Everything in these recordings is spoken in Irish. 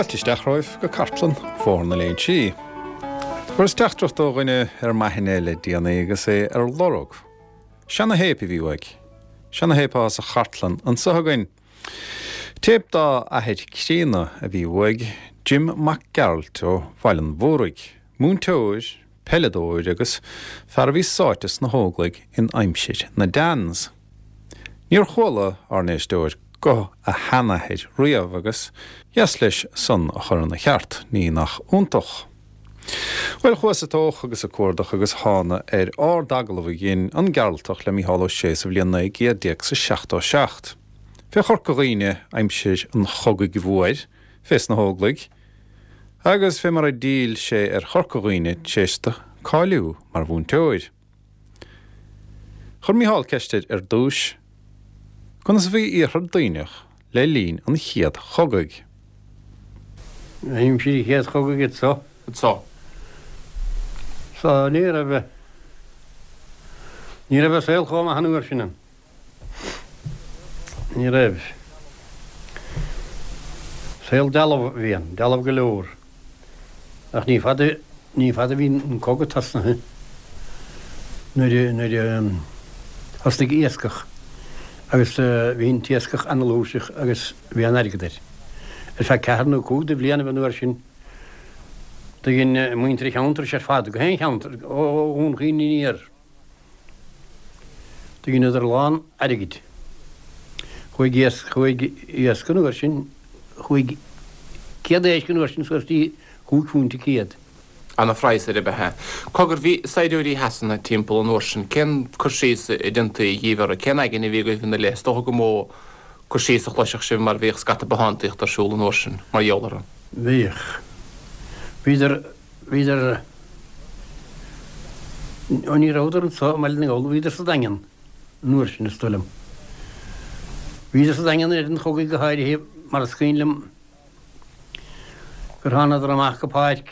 Fáilte isteach romhaibh go cartlann Bhóthar na Léinsí. Fuaireas teachtaireacht ó dhuine ar m'aithne le déanaí agus é ar lorg seana-théip a bhí uaidh. Seana-théip atá sa chartlann anseo againn. Téip dá athair críonna a bhí uaidh, Jim Mac Gearailt ó Bhaile an Mhúraigh, múinteoir, peileadóir agus fear a bhí sáite sna hÓglaigh in aimsir na Dans. Níor chuala ár n-éisteoir guth a sheanathair riamh agus dheas leis san a chur ina cheart, ní nach iontach. Bhuel, chuas ag tóch agus ag cuardach agus thána ar ard-agallamh a dhein an Gearaltach le Mícheál Ó Sé sa bhliain 1977. Fé Chorca Dhuibhne aimsir an Chogaidh Mhóir, fés na hÓglaigh, agus fé mar a d'fhill sé ar Chorca Dhuibhne tar éis do cáiliú mar mhúinteoir. Chuir Mícheál ceist air ar dtúis, conas a bhí Iarthar Duibhneach le linn an Chéad Chogaidh? Aimsir an Chéad Chogaidh anso. Anso. So ní raibh, ní raibh an saol chomh maith an uair sin ann. Ní raibh. Saol dealbh a bhí ann, dealbh go leor. Ach ní fada, ní fada a bhí an cogadh tosnaithe nuair a, nuair a thosnaigh iascach agus bhí an t-iascach ana-fhlúirseach agus bhí an-airgead air. Ar feadh ceathair nó cúig de bhlianaibh an uair sin do dhein muintir an cheantair seo ar fad, gach aon cheantar, ó Dhún Chaoin aniar, Do dheineadar a lán airgid. Chuaigh iasc, chuaigh iasc an uair sin, chuaigh céad éisc an uair sin suas dtí chúig phúint an céad. Ana-phraghas air ab ea. Cogar, bhí saighdiúirí Shasana timpeall an uair sin, cén cur síos a déantaí dhíbh orthu, cén aigne a bhí agaibh ina leith? Is dócha gur mó cur síos a chloisfeadh sibh mar bhíodh scata bothántaíochta ar siúl an uair sin mar gheall orthu. Bhíodh. Bhíodar Bhíodar, ó ní rabhadar anso i mBaile na nGall, bhíodar sa Daingean an uair sin, is dóigh liom. Bhíodar sa Daingean i rith an chogaidh go háirithe mar is cuimhin liom gur thánadar amach go páirc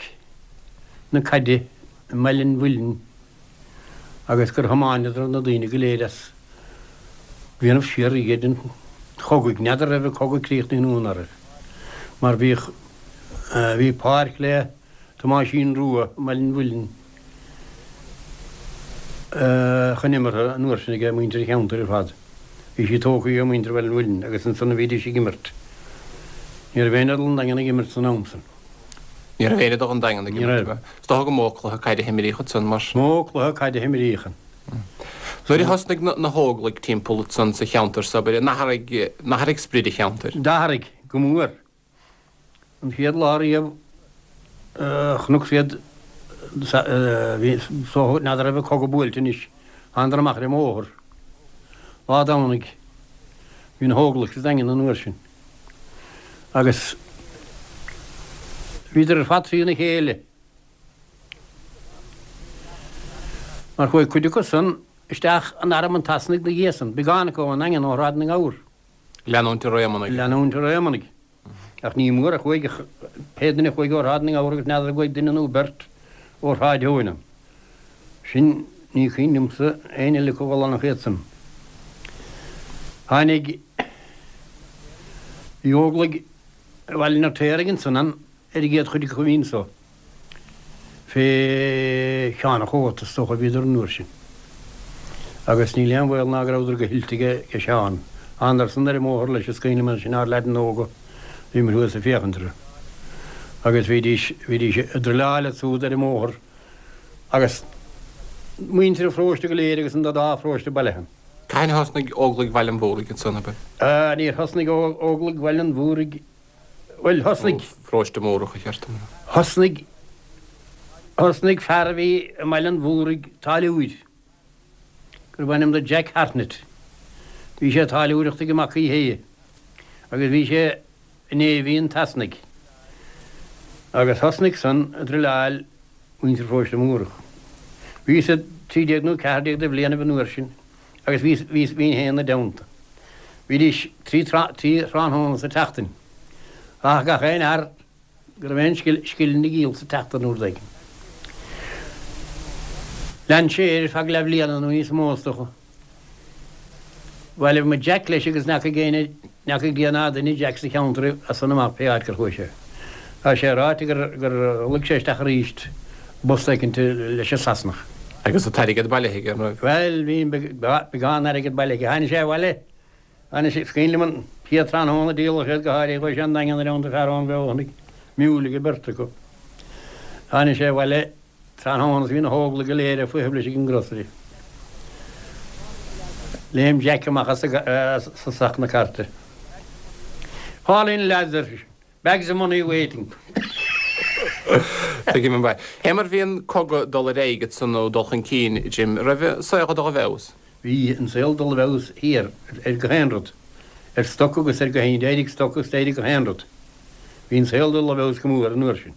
na caide i mBaile an Mhuilinn agus gur thiomáineadar na daoine go léir as déanamh siar iad an chogaidh. N'fheadar raibh an cogadh críochnaithe nó ná raibh, mar bhíodh, bhí páirc le Tomáisín Rua i mBaile an Mhuilinn chun imeartha an uair sin ag muintir an cheantair ar fad. Bhí sí tógtha ag muintir Bhaile an Mhuilinn agus ansan a bhídís ag imirt. Ní raibh éinne ag dul 'on Daingean ag imirt san am san. Ní raibh éinne ag dul 'on Daingean ag imirt. Is dócha gur mó cluiche caide a himríodh ansan mar. Mó cluiche caide a himríodh ann. Nuair a thosnaigh na hÓglaigh timpeall ansan sa cheantar so, abair, an athraigh, an athraigh sprid an cheantair? D'athraigh, go mór. An chéad lá riamh a chonac iad, bhí, so, n'fheadar raibh an cogadh buailte anois, thánadar amach ar an mbóthar. Lá Domhnaigh, bhí na hÓglaigh sa Daingean an uair sin. Agus bhíodar ar fad trína chéile. Mar chuaigh cuid acu san isteach in arm an tSasanaigh 'na dhiaidh san, beagán acu ón nDaingean ó Shráid na nGabhar. Leanúint ar Éamonnaigh. Leanúint ar Éamonnaigh. Ach ní mór a chuaigh, pé duine a chuaigh ó Shráid na nGabhar agus n'fheadar an gcuaigh duine nó beirt ó Shráid Eoin ann. Sin, ní cuimhin liomsa éinne eile acu a dhul ann ach iad san. Tháinig, bhí Óglaigh Bhaile an Fheirtéaraigh ansan ann ar an gcéad chuid acu a bhí anso. Fé Sheán a' Chóta, is dócha, a bhíodar an uair sin. Agus níl aon bhaol ná go rabhadar go hoilte ag Seán. Thánadar san ar an mbóthar leis, is cuimhin liom ansin ár leaideanna óga, bhíomar thuas ag féachaint orthu. Agus bhídís, bhídís ag druileáil ansúd ar an mbóthar agus muintir an pharóiste go léir agus an dá pharóiste bailithe ann. Cathain a thosnaigh Óglaigh Bhaile an Mhúraigh ansan, ab ea? Níor thosnaigh Óglaigh Bhaile an Mhúraigh Bhuel, thosnaigh. Pharóiste Múrach, a cheart dom a rá. Thosnaigh, thosnaigh fear a bhí i mBaile an Mhúraigh, táilliúir, gurbh ainm do Jack Hartnett. Bhí sé ag táilliúireacht ag Mac Uí hAodha agus bhí sé i Navy an tSasanaigh. Agus thosnaigh san ag druileáil muintir Pharóiste Múrach. Bhíos-sa 13 nó 14 de bhlianaibh an uair sin. agus bhíos, bhíos, bhínn féin 'na dteannta. Bhídís trí, trí thráthnóna sa tseachtain. Rachadh gach aon fhear go raibh aon scil, scil ina ghiall sa tseachtain rud éigin. Lean sé air ar feadh leathbhliana nó níos mó is dócha. Bhailigh muid Jack leis agus n'fheacaigh éinne, n'fheacaigh Dia ná duine Jack sa cheantar as san amach pé áit gur chuaigh sé. Tá sé ráite gur luigh sé isteach arís i bpost éicint leis an Sasanach. Agus an t-airgead bailithe aige, an raibh? Bhuel, bhí beagán airgid bailithe aige. Tháinig sé abhaile, tháinig sé, is cuimhin liom an chéad tráthnóna a díoladh iad go háirithe, chuaigh sé an Daingean i dteannta fear ón Bhreothanaigh, miúil ag an beirt acu. Tháinig sé abhaile tráthnóna is bhí na hÓglaigh go léir ag feitheamh leis ag an grocery. Léim Jack amach as a sac na cairte. Fall in lads, ar seisean. Bags of money waiting. Tuigim an mhaith. Fé mar bhí an cogadh ag dul ar aghaidh ansan nó dul chun cinn, Jim, raibh an saol ag dul i bhfeabhas? Bhí an saol ag dul i bhfeabhas thiar ar gach aon rud, ar stoc agus ar gach aon, d'éirigh stoc agus d'éirigh gach aon rud. Bhí an saol ag dul i bhfeabhas go mór an uair sin.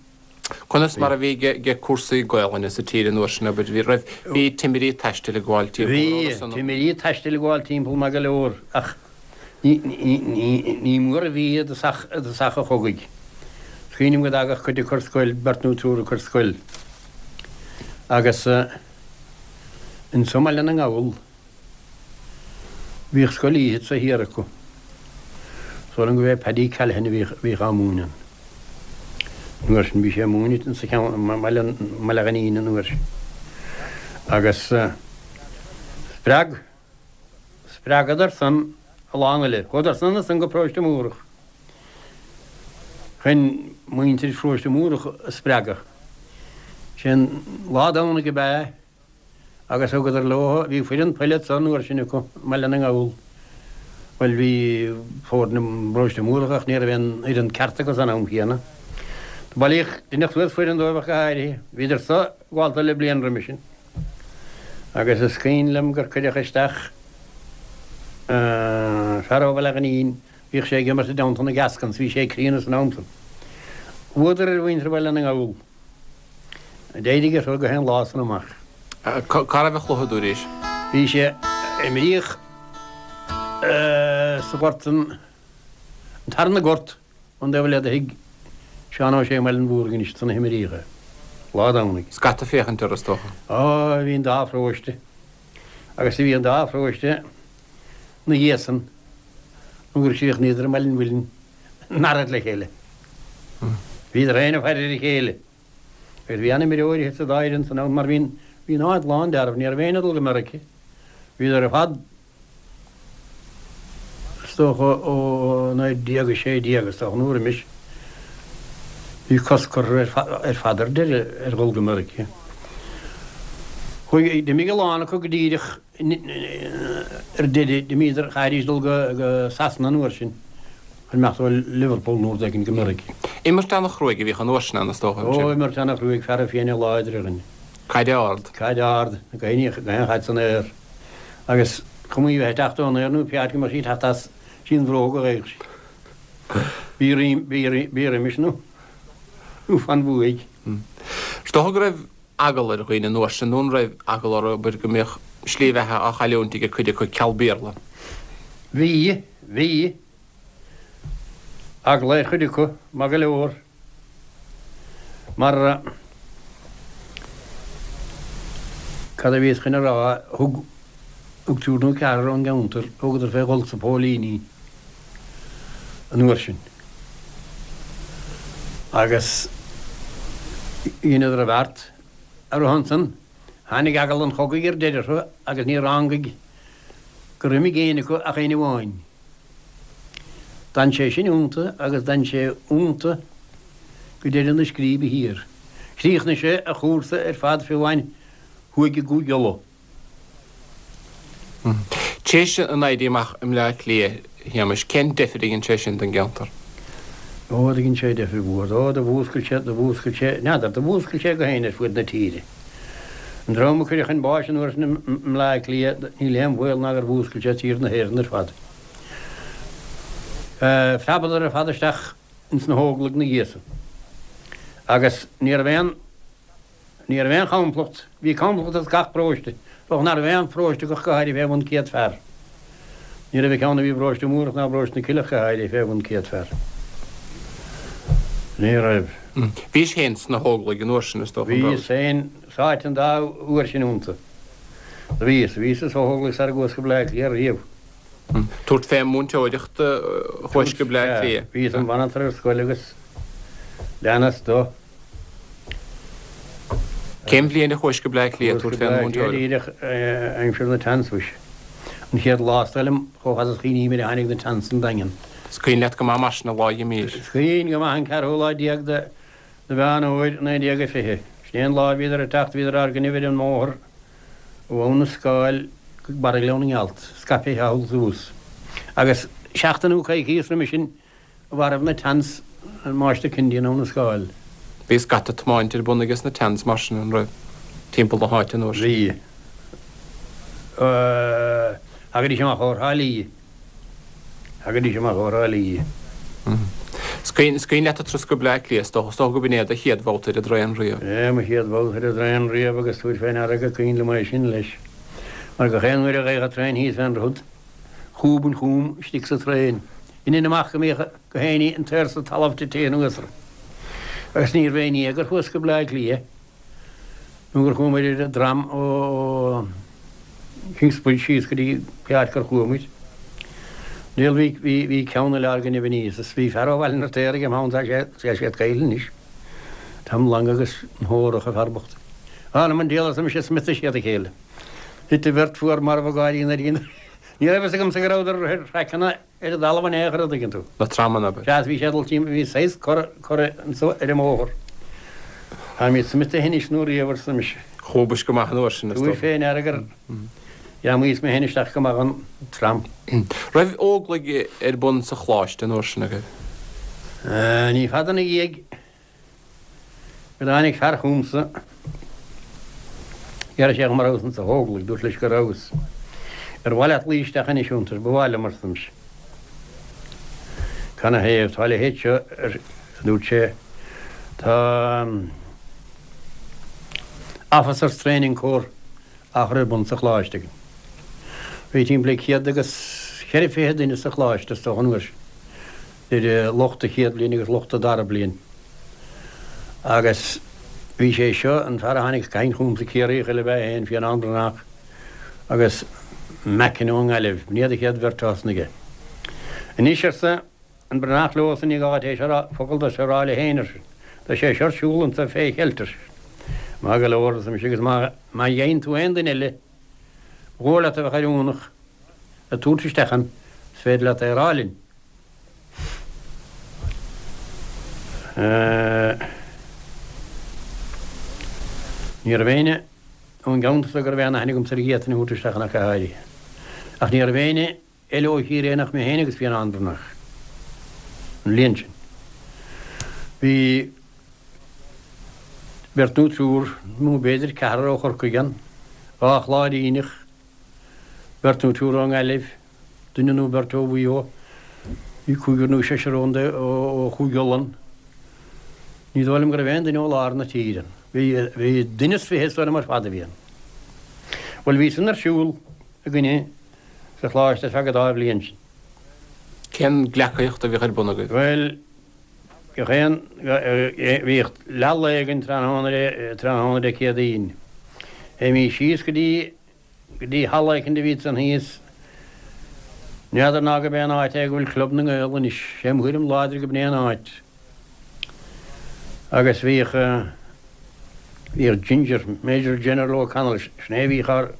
Conas mar a bhí ge cúrsaí Gaolainne sa tír an uair sin, abair, bhí, raibh, bhí timirí taistil ag gabháil timpeall, an raibh Bhí san? timirí taistil ag gabháil timpeall maith go leor ach ní, ní, ní, ní mór a bhí i dtosach, i dtosach an chogaidh. Is cuimhin liom go dtagadh cuid acu ar scoil, beirt nó triúr acu ar scoil agus anso i mBaile na nGall, Bhíodh scoil oíche anso thiar acu. Is dóigh liom gurbh é Paddy Callaghan a bhíodh á múineadh an uair sin. Bhí sé ag múineadh insa cheann, i mBaile Ghainín an uair sin. Agus spreag, spreagadar san a lán eile. Chuadar san ansan go Paróiste Múrach chun muintir Pharóiste Múrach a spreagadh. Sin lá Domhnaigh ab ea Agus thugadar leo, bhí foireann peile anso an uair sin acu i mBaile na nGall. Bhuel, bhí foirne i bParóiste Múrach ach ní raibh aon fhoireann ceart acu san am chéanna. Do bailíodh, deineadh suas foireann dóibh ach go háirithe. Bhíodar so ag gabháil le bliain roimis sin. Agus is cuimhin liom gur cuireadh isteach fear ó Bhaile Ghainín, bhíodh sé ag imirt i dteannta na Gascons, bhí sé críonna san am san. Bhuadar ar mhuintir Bhaile na nGall. D'éirigh orthu gach aon lá san amach. Cá raibh an cluiche dúiris? Bhí sé, imríodh sa ghort an tarna gort ón dtaobh eile de thigh Seán Ó Sé i mBaile an Mhúraigh anois ansan a himríodh é. Lá Domhnaigh. Scata féachaint air is dócha. Á, bhí an dá pharóiste agus bhí an dá pharóiste 'na dhiaidh san nó gur chríochnaíodar i mBaile an Mhuilinn in earraid le chéile. Bhíodar féin ag faire ar a chéile. Agus bhí an-imreoirí sa dá fhoireann san am mar bhí bhí an áit lán d'fhearaibh, ní raibh éinne ag dul go Meirice. Bhíodar ar fad is dócha ó 1916 is dócha nó roimis. Bhí cosc curtha ar fad ar deireadh ar dhul go Meirice. Chuaigh, d'imigh a lán acu go díreach Ar deireadh, d'imíodar, chaithfidís dul go Sasana an uair sin, chun imeacht ó Liverpool nó rud éigin go Meiriceá. Imirt ana-chruaidh a bhíodh an uair sin ann, is dócha. Ó, imirt ana-chruaidh, feara fiaine láidre againn. Caid ard. Caid ard, gach aon chaid san aer. Agus cuma í bheith ag teacht ón aer nó pé áit go mbeadh sí ag teacht as, sí an bhróg a gheibheadh sí. Bí bí roimis nó fan bhuaidh. Is dócha go raibh eagla ar dhaoine an uair sin, nó an raibh eagla orthu, abair, go mbeadh slí bheatha á chailliúint ag cuid acu ceal Béarla? Bhí, bhí. Eagla ar chuid acu, maith go leor. Mar, cad a bhíos chun a rá, thug, thug triúr nó ceathrar ón gceantar, thugadar fé dhul sna póilíní an uair sin. Agus dheineadar a bheart ar a shon san. Tháinig eagal an chogaidh ar deireadh orthu agus níor rángaig gur imigh éinne acu ach éinne amháin. D'fhan sé sin iontu agus d'fhan sé iontu go deireadh na scríbe thiar. Chríochnaigh sé a chúrsa ar fad fiú amháin thuaidh i gCúige Uladh. Théis an Éirí Amach i mBleá Cliath, a Shéamais, cén deifir a dhein sé sin don gceantar? Ó, do dhein sé deifir mhór. Ó, do mhúscail sé, do mhúscail sé, n'fheadar, do mhúscail sé gach éinne ar fuaid na tíre. An dream a cuireadh chun báis an uair sin i mBleá Cliath, níl aon bhaol ná gur mhúscail sé tír na hÉireann ar fad. Phreabadar ar fad isteach ins na hÓglaigh 'na dhiaidh san. Agus ní raibh aon. Ní raibh aon chomplacht, bhí complacht as gach paróiste, dócha nach raibh aon pharóiste ach go háirithe fé bhun 100 fear. Ní raibh ceann a bhí i bparóiste Múrach ná i bparóiste na Cille ach go háirithe fé bhun 100 fear. Ní raibh. Bhís féin sna hÓglaigh an uair sin, is dócha, an raibh? Bhíos féin sáite an dá uair sin iontu. Do bhíos. Bhíos sna hÓglaigh sara gcuas go Bleá Cliath riamh. Tabhairt fé múinteoireacht chuais go Bleá Cliath. Bhíos im mhanantar ar scoil agus. Leanas do. Cén bhliain a chuais go Bleá Cliath tabhairt fén múinteoireacht? Díreach aimsir na Tans mhuise. An chéad lá is dóigh liom chomh fada is a chuimhním ar a tháinig na Tans 'on Daingean. Is cuimhin leat go maith mar sin an lá a dh'imís. Is cuimhin go maith an ceathrú lá déag de Mheán Fhómhair 1920. Sin é an lá a bhíodar ag teacht, bhíodar ár gcoinnibh ar an mbóthar ó Abhainn na Scáil go barra Ghleann na nGealt, scaipthe thall is abhus. Agus seachtain nó coicíos roimis sin mharbh na Tans an Máistir Kennedy in Abhainn na Scáil. Bhí scata tiomáint ar bun ages na Tans mar sin, an raibh, timpeall na háite an uair sin? Bhí. Thagaidís amach ó Thrá Lí. Thagaidís amach ó Thrá Lí. Is cuimhin leat an turas go Bleá Cliath, is dócha, is dócha go b'in é do chéad bhabhta ar an dtraein riamh. É, mo chéad bhabhta ar an dtraein riamh agus tabhair fé ndeara gur cuimhin liom é sin leis. Mar gach aon uair a gheibheadh an traein thíos fén droichead, chúb an chúm istigh sa traein. Dhéanfainn amach go mbíodh gach éinne an t-aer sa talamh tite anuas orm. Agus níorbh aon ní é gur chuas go Bleá Cliath nó gur chuamair ar an dtram ó Kingsbridge síos go dtí pé áit gur chuamair. Níl, bhí, bhí, bhí ceann eile ár gcoinnibh aníos is bhí fear ó Bhaile an Fheirtéaraigh im theannta, tá sé, tá sé caillte anois. Tom Long agus an Hórach, an fear bocht. Anam an diabhail arsa mise, smiotaigh siad a chéile. Thit an bheirt fuar marbh ag gáirí nuair a Ní raibh fhios agamsa go rabhadar ar thraiceanna ar an dtalamh in aon chor, an dtuigeann tú. Na tramanna, abair. Sea, bhí sé ag dul timpeall, bhí saghas cor, cor anso ar an mbóthar. Táimid smiotaithe anois nó riamh, arsa mise. Chúbais go maith an uair sin, is dócha. Tabhair fé ndeara gur ghreamaíos mé féin isteach go maith dhon tram. Raibh Óglaigh ar bun sa Choláiste an uair sin agaibh? Ní fada ina dhiaidh go dtáinig fear chugamsa. D'iarr sé dhom an rabhas insa Óglaigh. Dúrt leis go rabhas. Ar mhaith leat luí isteach anois iontu? Ba mhaith liom, arsa mise. Canathaobh? Tá a leithéid seo, a dúirt sé. Tá Officers Training Corps á chur ar bun sa Choláiste againn. Bhí timpeall le 124 duine sa Choláiste is dócha an uair sin. idir lucht an chéad bhliain agus lucht an dara bliain. Agus bhí sé seo, an fear a tháinig ag caint chugamsa, Ciarraíoch eile ab ea é féin, Fionnán Breathnach, agus Mackin ón nGaillimh, b'in iad an chéad bheirt a thosnaigh é. Anois, arsa an Breathnach leosan, ní gá duit é seo a rá, focal de seo a rá le héinne, ar seisean. Tá sé seo ar siúl anso fé cheilt, ar seisean. Maith go leor, arsa mise, agus má gheibheann tú aon duine eile, ba dhóigh leat a bheadh oiriúnach le tabhairt isteach ann, is féidir leat é a rá linn. Ní raibh éinne ón gceantar so go raibh aon aithne agamsa air a d'fhéadfainn a thabhairt isteach ann ach go háirithe. Ach ní raibh éinne eile ó Chiarraí ann ach mé féin agus Fionnán Breathnach an bhliain sin. Bhí beirt nó triúr, nó b'fhéidir ceathrar ó Chorcaigh ann, 2 Chláiríneach, beirt nó triúr ón nGaillimh, duine nó beirt ó Mhaigh Eo, bhí cúigear nó seisear ón ó Chúige Uladh. Ní dóigh liom go raibh aon duine ó lár na tíre ann. Bhí, bhí duine is fiche is dóigh liom ar fad a bhí ann. Bhuel, bhí san ar siúl againne sa Choláiste ar feadh an dá bhliain sin. Cén gleacaíocht a bhíodh ar bun agaibh? Bhuel, gach aon, bhíodh leath lae againn tráthnóna, tráthnóna Dé Céadaoin. Théimís síos go dtí go dtí halla éicint a bhí ansan thíos. N'fheadar ná gurb é an áit é go bhfuil Club na nGael anois. Sé mo thuairim láidir go b'in é an áit. Agus bhíodh, bhíodh Ginger, Major General O'Connell, sin é a bhíodh ár,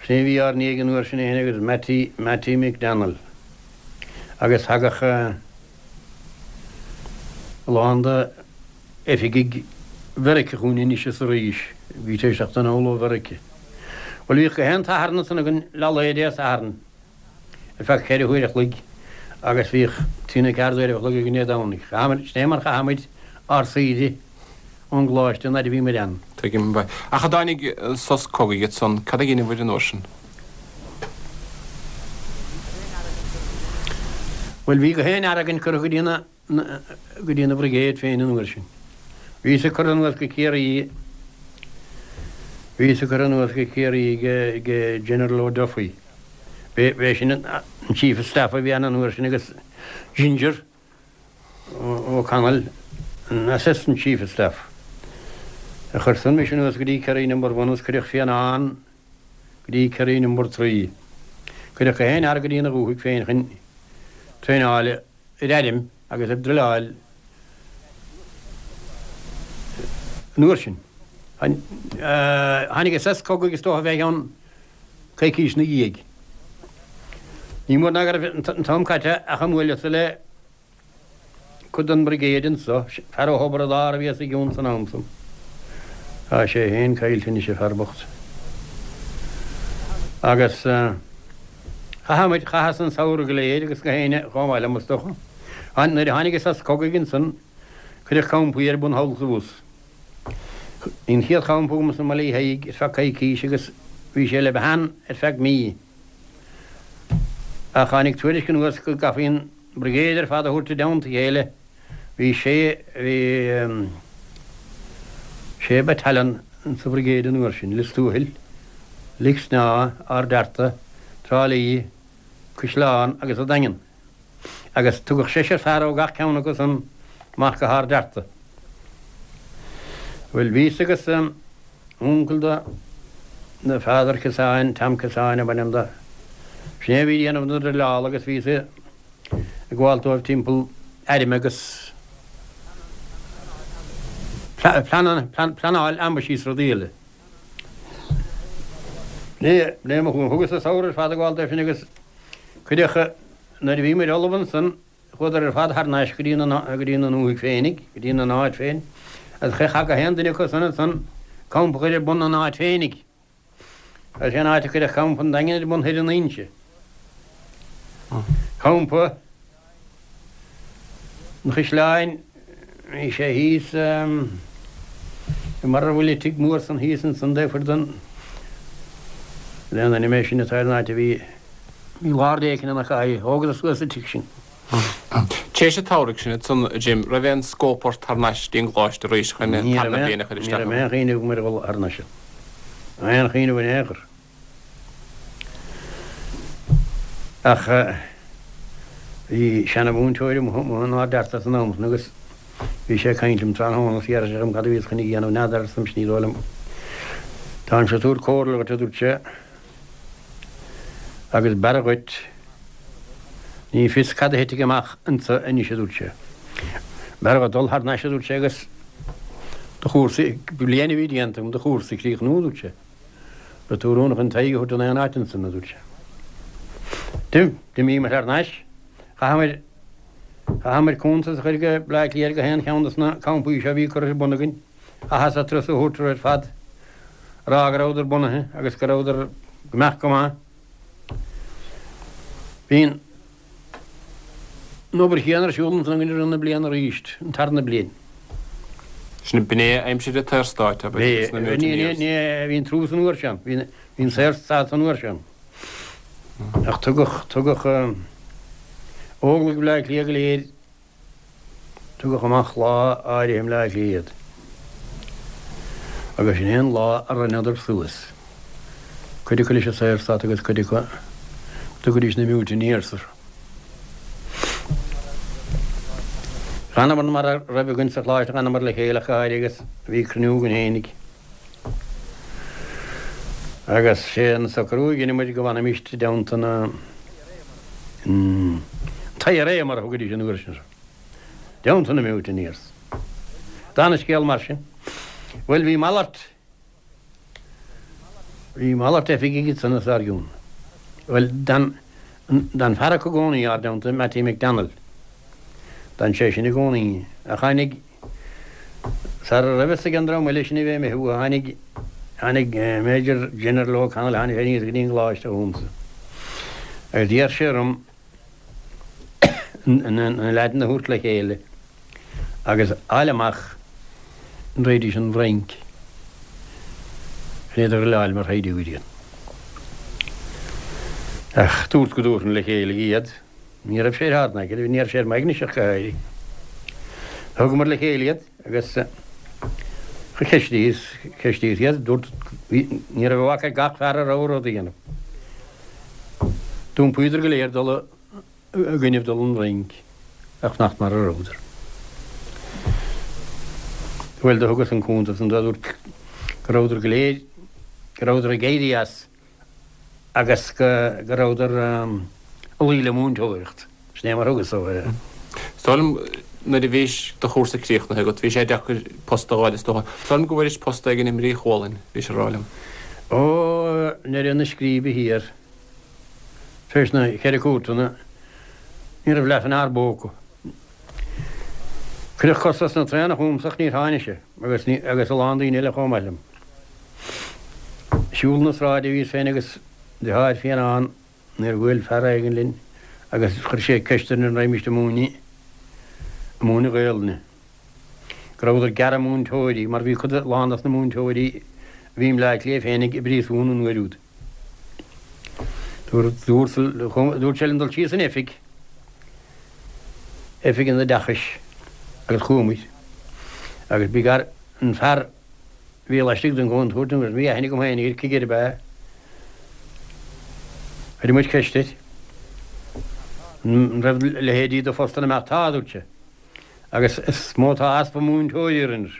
sin é a bhí ár ndiaidh an uair sin é féin agus Mattie, Mattie McDonnell. Agus thagadh a lán de. oifigigh Mheiriceá chugainn anois is arís, bhí tar éis teacht anall ó Mheiriceá. Bhuel, bhíodh gach aon tSatharn ansan againn leath lae Dé Sathairn ar feadh cheithre huaire a chloig agus bhíodh trí nó ceathair d'uairibh a chloig againn Dé Domhnaigh. Chaitheamair, sin é mar chaitheadh muid ár saoire ón gcoláiste an fhaid a bhí muid ann. Tuigim. Ach a dtáinig sos cogaidh ansan, cad a dheineabhair an uair sin? Bhuel, bhí gach aon fhear againn curtha go dtí na. go dtí na brigade féin an uair sin. Bhíos-sa curtha anuas go Ciarraí, bhíos-sa curtha anuas go Ciarraí ag General O'Duffy. B'é sin an Chief of Staff a bhí ann an uair sin agus Ginger O'Connell an Assistant Chief of Staff. Chuir san mise anuas go dtí Kerry Number One agus cuireadh Fionnán go dtí Kerry Number Three. Cuireadh gach aon fhear go dtí na dhúthaigh féin chun traenáil ar airm agus ag druileáil. An uair sin. Tháinig an sos cogaidh is dócha fé cheann coicís 'na dhiaidh. Ní mór ná go raibh an t-am caite ach a mbuaileas-sa le cuid den mBrigéid anso, fear ó Thobar an Dara a bhí os a gcionn san am san. Tá sé féin caillte anois, an fear bocht. Agus chaith muid, chaitheas an samhradh go léir agus gach éinne chomh maith liom is dócha. Nuair a tháinig an sos cogaidh ansan, cuireadh campaí ar bun thall is abhus. Bhí an chéad champa agamsa i mBaile Uí Thaidhg ar feadh coicís agus bhí sé le bheith ann ar feadh mí. Ach tháinig tuairisc anuas go gcaithfí an Brigéid ar fad a thabhairt i dteannta a chéile. Bhí sé, bhí sé battalion sa Bhrigéid an uair sin, Lios Tuathail, Lic Snámha, Ard Fhearta, Trá Lí, Caisleán agus an Daingean. Agus tugadh seisear fear ó gach ceann acu san amach go hArd Fhearta. Bhuel, bhíos agus uncail do do Pheadar Kissane, Tom Kissane ab ainm do. Sin é a bhí ag déanamh na druileála agus bhíos ag gabháil dóibh timpeall airm agus pleanáil ambaisí is rudaí eile. B'in é mo chúram. Thugas an samhradh ar fad ag gabháil dóibh sin agus cuireadh, nuair a bhí muid ullamh ansan, Chuadar ar fad thar n-ais go dtí na, go dtí na ndúthaigh féinig, go dtí na n-áit féin, agus chaithfeadh gach aon duine acu san ansan campa a chur ar bun ina n-áit féinig. Agus sé an áit a cuireadh campa an Daingin ar bun thoir in Inse. Campa an Chaisleáin, bhí sé thíos i mar a bhfuil an tigh mór san thíos ansan taobh thoir den, den ainm é sin atá ar an áit a bhí, Bhí lár éicint ina chaith, thógadar suas an tigh sin. Tar éis an tsamhraidh sin ansan, a Jim, raibh aon scóip ort thar n-ais dtí an gcoláiste arís chun an tarna bliain a chur isteach ann? Ní raibh aon chuimhneamh agam ar dhul thar n-ais. Aon chuimhneamh in aon chor. Ach bhí seana-mhúinteoir amuigh in Ard Fhearta san am san agus bhí sé ag caint liom tráthnóna agus d'iarr sé dhíom cad a bhíos chun a dhéanamh, n'fheadar, arsa mise, ní dóigh liom. Táimse ag tabhairt comhairle dhuit, a dúirt sé. Agus b'fhearra dhuit, ní fios cad a thitfidh amach anso anois, a dúirt sé. B'fhearra dhuit dul thar n-ais, a dúirt sé, agus do chúrsa, bliain a bhí déanta agam, do chúrsa a chríochnú, a dúirt sé. Beidh tú oiriúnach chun t'aghaidh a thabhairt in aon áit ansan, a dúirt sé. D'imíomar thar n-ais. Chaitheamair, chaitheamair cuntas a chur go Bleá Cliath ar gach aon cheann dos na campaí seo a bhí curtha ar bun againn. Chaitheas turas a thabhairt orthu ar fad, a rá go rabhadar bunaithe agus go rabhadar go mbeadh go maith. Bhí an obair chéanna ar siúl ansan againn i rith na bliana arís, an tarna bliain. Sin b'in é aimsir an tSaorstáit, ab ea, agus na Mutineers? Ní, bhí an truas an uair sin, bhí an Saorstát an uair sin. Ach tugadh, tugadh Óglaigh Bhaile Átha Cliath go léir Tugadh amach lá áirithe i mBleá Cliath iad agus sin é an lá a rinneadar suas, cuid acu leis an Saorstát agus cuid acu go dtugaidís na Mutineers orthu. D'fhanamar mar a raibh againn sa choláiste, d'fhanamar le chéile ach go háirithe agus bhí cruinniú againn fhéinig agus sé an socrú a dhein muid go bhfanfaimíst i dteannta na An t-IRA mar a thugaidís an uair sin orthu. I dteannta na Mutineers. D'fhan an scéal mar sin. Bhuel, bhí malairt, bhí malairt oifigigh ansan os ár gcionn. Bhuel, d'fhan, d'fhan fear acu i gcónaí ár dteannta, Mattie McDonnell. D'fhan sé sin i gcónaí. Ach tháinig. Sara raibh fhios ag an dream eile sin a bheith imithe uathu, tháinig, tháinig Major General O'Connell, tháinig sé aníos go dtí an gcoláiste chugamsa agus d'iarr sé orm na leaideanna a thabhairt le chéile agus fháil amach an raghaidís 'on bhFrainc chun iad a dhruileáil mar shaighdiúirí. Ach dúrt go dtabharfainn le chéile iad. Ní raibh sé ar ár n-aigne, ní raibh sé ar m'aignese ach go háirithe. Thugamar le chéile iad agus cheistíos, cheistíos iad, dúirt, ní raibh a mhac ag gach fear a rogha rud a dhéanamh. D'iompaíodar go léir dul i gcoinnibh dul 'on bhFrainc ach fanacht mar a rabhadar. Bhuel, do thugas an cuntas san dóibh, dúirt go rabhadar go léir, go rabhadar ag éirí as. agus go rabhadar ag luí le múinteoireacht. Sin é mar a thugas dóibh é. Is dóigh liom. Nuair a bhís do chúrsa críochnaithe agat, bhí sé deacair post a dh'fháil is dócha. Is dóigh liom go bhfuairis post éigin i mBrí Chualainn, bhís a rá liom. Ó, nDoire na Scríbe thiar, tar éis na Ceithre Cúirteanna, ní raibh leath an fhear bpóca. Cuireadh costas na traenach chugamsa ach níor tháinig sé, agus ní, agus a lán daoine eile chomh maith liom. Siúl na sráide a bhíos féin agus deartháir Fionnán nuair a bhuail fear éigin linn agus chuir sé ceist orainn an raghaimíst ag múineadh, ag múineadh Gaelainne. Go rabhadar ag gearradh múinteoirí mar bhí cuid, lán dos na múinteoirí a bhí i mBleá Cliath féinig i bpríosún an uair úd. Dúirt, dúirt sé linn dul síos san oifig, oifig an oideachais agus chuamair agus bhí gar an fear a bhí laistigh den gcontúirt agus bhí aithne agam féin air, cigire ab ea é. Chuir muid ceist air an raibh leithéidí de phostanna amach. Tá, a dúirt sé, agus is mó atá easpa múinteoirí orainn.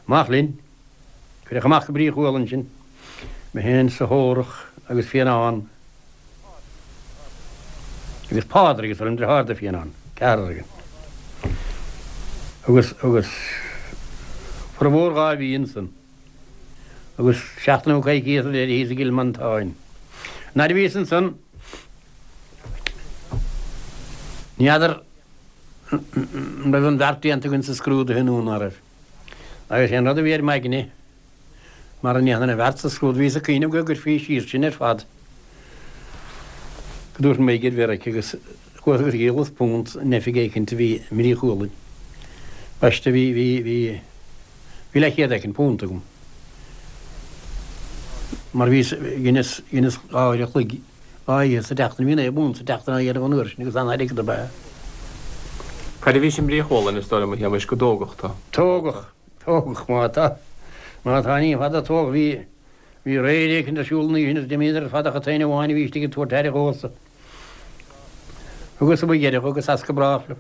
Amach linn. Cuireadh amach go Brí Chualann sinn, mé féin 's Órach agus Fionnán agus Pádraig is an deartháir do Fionnán, ceathrar againn. Agus, agus formhór 2 mhí ansan agus seachtain nó coicíos ar deireadh thíos i gCill Mhantáin. Nuair a bhíos ansan, ní fheadar an raibh an bheart déanta againn sa scrúduithe nó ná raibh. Agus sé an rud a bhí ar m'aigne, mara ndéanfainn an bheart sa scrúdú, bhíos ag cuimhneamh go gcuirfí síos sinn ar fad, go dtabharfainn m'aghaidh ar Mheiriceá agus chuas agus dhíolas punt in oifig éicint a bhí i mBrí Chualainn. Baiste, bhí, bhí, bhí, bhí leathchéad éicint punt agam. Mar bhíos, dheineas, dheineas 2 uair a chloig 2 oíche sa tseachtain, bhí 9 bpunt sa tseachtain á dhéanamh an uair sin agus an-airgead ab ea. Cad a bhís i mBrí Chualainn, is dóigh liom, a Shéamais, go dtógadh tú? Tógadh, tógadh, má tá, má tá, ní fada tógadh, bhí, bhí raid éicint ar siúl an oíche sin agus d'imíodar ar fad ach an t-aon amháin a bhí istigh ag tabhairt aire dhomhsa. Thugas mo dheireadh agus as go brách liom.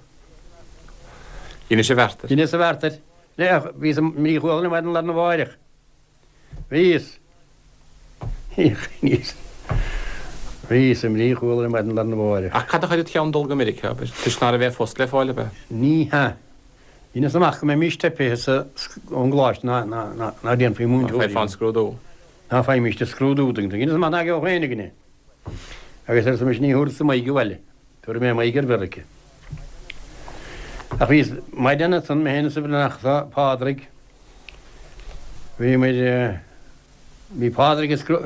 Dheinis an bheart air. Dheineas an bheart air. Bhíos i mBrí Chualainn ar maidin lá arna mháireach. Bhíos. Bhíos. Bhíos i mBrí Chualainn ar maidin lá arna mháireach. Ach cad a chuir id cheann dul go Meiriceá, abair? Toisc ná raibh aon phost le fáil, ab ea? Ní hea. Dheineas amach go mbeimís teipithe sa, ón gcoláiste ná, ná, ná, ná déanfaí múinteoirí. Ná faighfeá an scrúdú. Ná faighimíst an scrúdú. Dheineas amach ná gheobhadh éinne againn é. Agus arsa mise ní thabharfadsa m'aghaidh abhaile. Tabharfaidh mé m'aghaidh ar Mheiriceá. Ach bhíos maidin ansan, mé féin is an Breathnach seo, Pádraig. Bhí muid, bhí Pádraig ag scrú,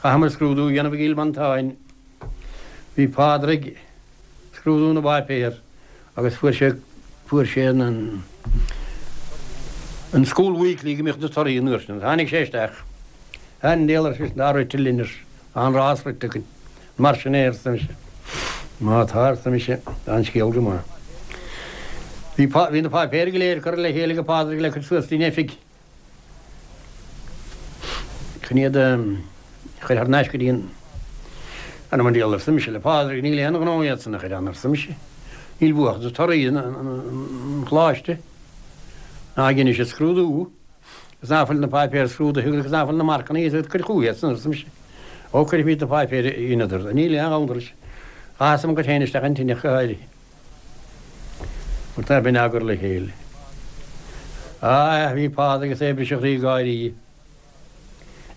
chaitheamar scrúdú a dhéanamh i gCill Mhantáin. Bhí Pádraig ag scrúdú na bpáipéar agus fuair sé, fuair sé an, an School Weekly go mbíodh na torthaí an uair sin. Tháinig sé isteach. An diabhal ar seisean, tá rite linn, ar tá an rás rite againn. Mar sin é, arsa mise. Má tá, arsa mise, tá an scéal go maith. Bhí, bhí na páipéir go léir curtha le chéile ag Pádraig le cur suas dtí'n oifig chun iad a chur thar n-ais go dtí an Anam an diabhal, arsa mise le Pádraig, níl aon ghnó iad san a chur ann, arsa mise. Níl uathu ach na torthaí an choláiste. Ná dheinis an scrúdú. Agus ná fuil na páipéir scrúdaithe agus ná fuil na marcanna iad cuir chucu iad san, arsa mise. Ó, cuirfimid na páipéir a dheineadar. Níl aon ghabhann leis. Chaitheas mo chuid féin isteach an tine ach go háirithe. Mar tá b'in á gcur le chéile. Á, bhí Pádraig agus é ag briseadh a chroí ag gáirí.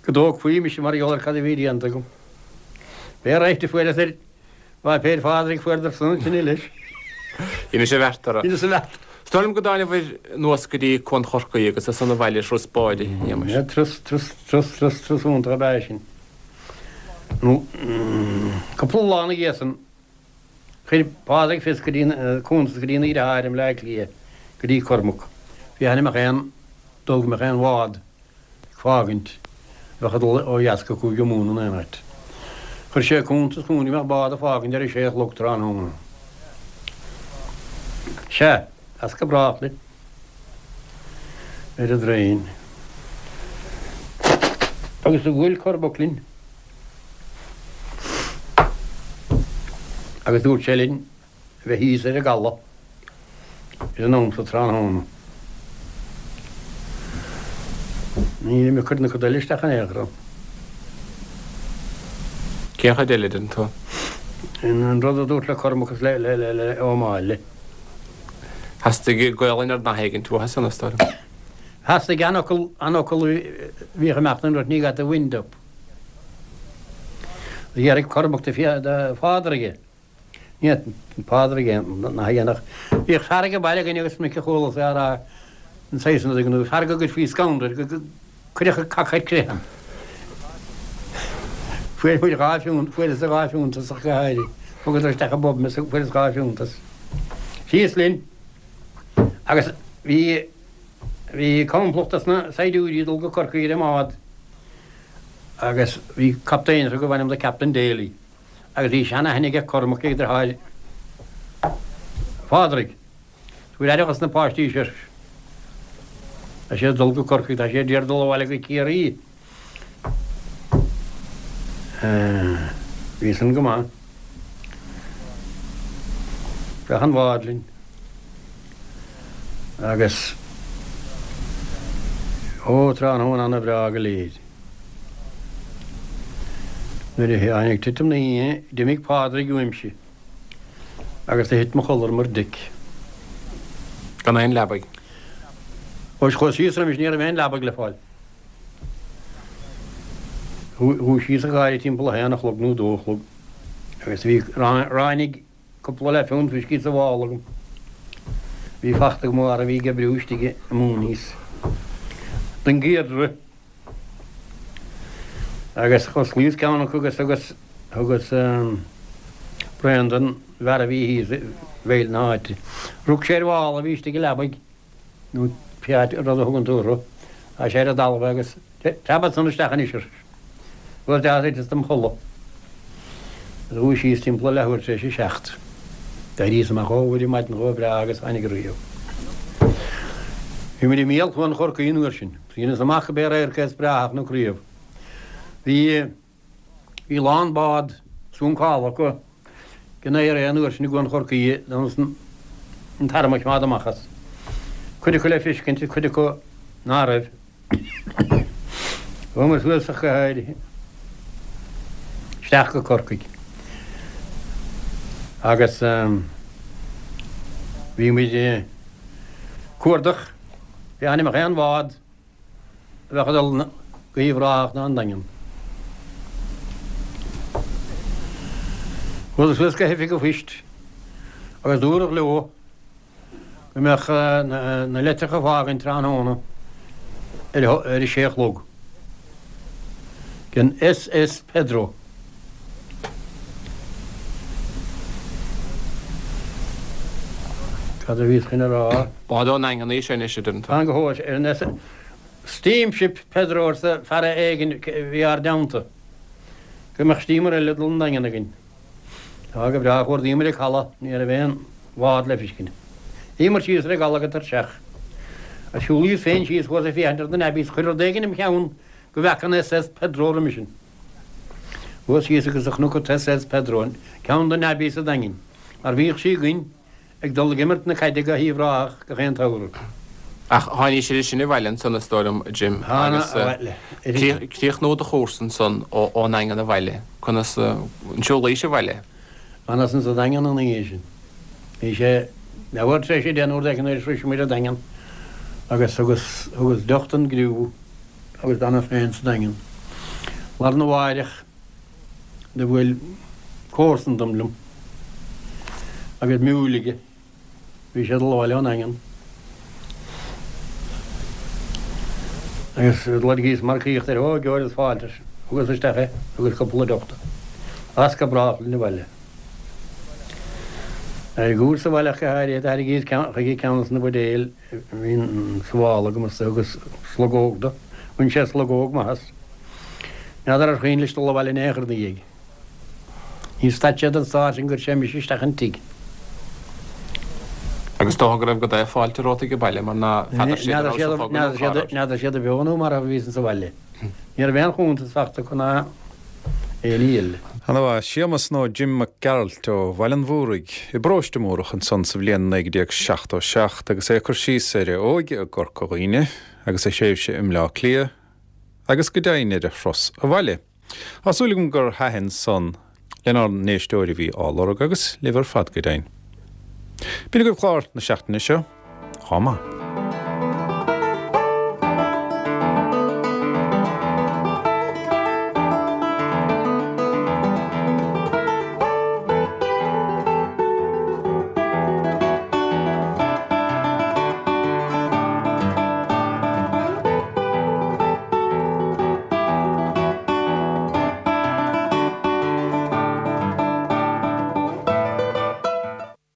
Go dtógfaí mise mar gheall ar cad a bhí déanta agam. B'é right a fuaireas ar pháipéir Phádraig fuaireadar san an tine leis. Dheinis an bheart orthu. Dheineas an bheart. Is dóigh liom go dtánabhair anuas go dtí Cuan Chorcaí agus as san abhaile ar thuras báid, a Shéamais. Turas, turas, turas, turas, turas iontach ab ea é sin. Nó, cúpla lá ina dhiaidh san, chuir Pádraig fios go dtí, cuntas go dtí ina dheartháir i mBleá Cliath, go dtí Cormac, féachaint an mbeadh aon dul go mbeadh aon bhád ag fágaint, a bheadh ag dul ó dheas go Cúige Mumhan in aon áit. Chuir sé cuntas chugainn go mbeadh bád ag fágaint ar a sé a chlog tráthnóna. Sea, as go brách linn. Ar an dtraein. Agus do bhuail Cormac linn. Agus dúirt sé linn a bheith thíos ar an gcaladh ar an am sa tráthnóna. Nílim ag cur na coda eile isteach in aon chor ann. Cén chuid eile, deireann tú? An rud a dúrt le Cormac is le Ó Máille. Theastaigh Gaolainn ar nath éigint uathu san, is dóigh liom. Theastaigh an fhocal, an fhocal a bhíodh ag imeacht an rud, ní got the wind up. D'fhiafraigh Cormac de Phádraig é. Ní Pádraig é nath a dhéanfadh. Bhíodh fear ag an baile againn agus minic a chualas é á rá an saghas san rud, fear go gcuirfí scanradh air, go gcuirfeadh an cac ar crith. Fuair muid 2 phunt, fuaireas 2 phunt as ach go háirithe. Thugadar isteach i bpub mé is fuaireas 2 phunt as. Síos linn agus bhí, bhí complacht as na saighdiúirí ag dul go Corcaigh ar an mbád agus bhí captaen orthu gurbh ainm do Captain Daly agus bhí seanaithne aige Cormac ag deartháir Phádraig. Tabhair aire dhos na páistí seo. Tá siad ag dul go Corcaigh, tá siad d'iarraidh dul abhaile go Ciarraí. Bhí san go maith. Isteach an bhád linn. Agus ó, tráthnóna ana bhreá go léir. Nuair a tháinig titim na hoíche, d'imigh Pádraig uaimse. Agus do thit mo chodladh ar mo deic. Gan aon leabaidh. Ó chuas síos roimis ní raibh aon leabaidh le fáil. Dhúisíos ach go háirithe timpeall a haon a chlog nó a dó a chlog agus bhí ráinig cúpla leathphunt fuiscí sa mhála agam. Bhí fachta agam ó fhear a bhí ag oibriú istigh i Mooney's don gCiardra. Agus dh'osclaíos ceann acu agus thugas, thugas braon don bhfear a bhí thíos i bhfeighil na háite. Rug sé ar mhála a bhí istigh i leabaidh, nó pé áit, rud a thugann tú orthu. Tá sé ar an dtalamh agus preabadh san isteach anois ar Chuas isteach is thiteas dom chodladh. Dhúisíos timpeall a leathuair tar éis a seacht. D'éiríos amach ó ar maidin chomh breá agus tháinig riamh. Bhí muid i mbéal Chuan Chorcaí an uair sin. Dheineas amach go b'é radharc é is breátha a chonac riamh. Bhí bhí lán bád suncála acu den IRA an uair sin i gCuan Chorcaí d'fhonn an t-arm a choimeád amach as. Cuid acu le feiscint, cuid acu ná raibh. Chuamar suas ach go háirithe isteach go Corcaigh agus bhí muid ag cuardach féachaint an mbeadh aon bhád a bheadh ag dul go hUíbh Ráthach ná an Daingean. Chuadar suas go hoifig an phoist agus dúradh leo go mbeadh na litreacha ag fágaint tráthnóna ar a sé a chlog den SS Pedro. Cad a bhíos chun a rá? Bád ón nDaingean í sin anois, a deireann tú. Fan go hóir ar an SS Steamship Pedro arsa fear éigin a bhí ár dteannta. Go mbeadh steamer eile ag dul 'on Daingean againn. Tá go breá, chuardaíomar an caladh, ní raibh aon bhád le feiscint. Shuíomar síos ar an gcaladh go tuirseach. Agus shiúlaíos féin síos, chuas ag féachaint ar na navvies, chuir rud éigin im cheann go bhfeaca an SS Pedro roimis sin. Chuas síos agus do chonac an tSS Pedro, ceann de navvies an Daingin, mar bhíodh sí againn ag dul ag imirt na caide go hUíbh Ráthach gach aon tsamhradh. Ach tháinís idir sin abhaile ansan is dóigh liom, a Jim, agus críochnú do chúrsa ansan ón nDaingean abhaile, conas an siúlaís abhaile? D'fhanas insa Daingean an oíche sin. Bhí sé leathuair tar éis a deich nó rud éigin nuair a shrois muid an Daingean agus thugas, thugas deoch don gcriú agus d'fhanas féin sa Daingean. Lá arna mháireach do bhuail comharsan dom liom agus miúil aige. Bhí sé ag dul abhaile ón nDaingean agus loirgíos marcaíocht air. Ó, geobhair fáilte, ar seisean. Thugas isteach é, thugas cúpla deoch dó. As go brách linn abhaile. Ar an gcúrsa abhaile ach go háirithe, thairringíos chuige ceann de na buidéil a bhí sa mhála agam is thugas slogóg dó. Bhain sé slogóg maith as. N'fheadar ar chuimhin leis dul abhaile in aon chor ina dhiaidh. Níor stad sé den stár sin gur chuir sé mise isteach an tigh. Agus is dócha go raibh go deo fáilte romhat ag baile mar ná feadar siad an raibh sa chogadh nó cá raibh. N'fheadar siad beo nó marbh a bhíos sa bhaile. Ní raibh aon chuntas fachta acu ná aon ní eile. Ana mhaith. Séamus nó Jim Mac Gearailt ó Bhaile an Mhúraigh i bparóiste Múrach ansan sa bhliain 1977 agus é ag cur síos ar a óige i gCorca Dhuibhne agus a thréimhse i mBleá Cliath agus go deimhin ar a thuras abhaile. Tá súil agam gur thaitin san lenár n-éisteoir a bhí á lorg agus libh ar fad go deimhin. B'in agaibh clár na seachtaine seo. Chomh maith.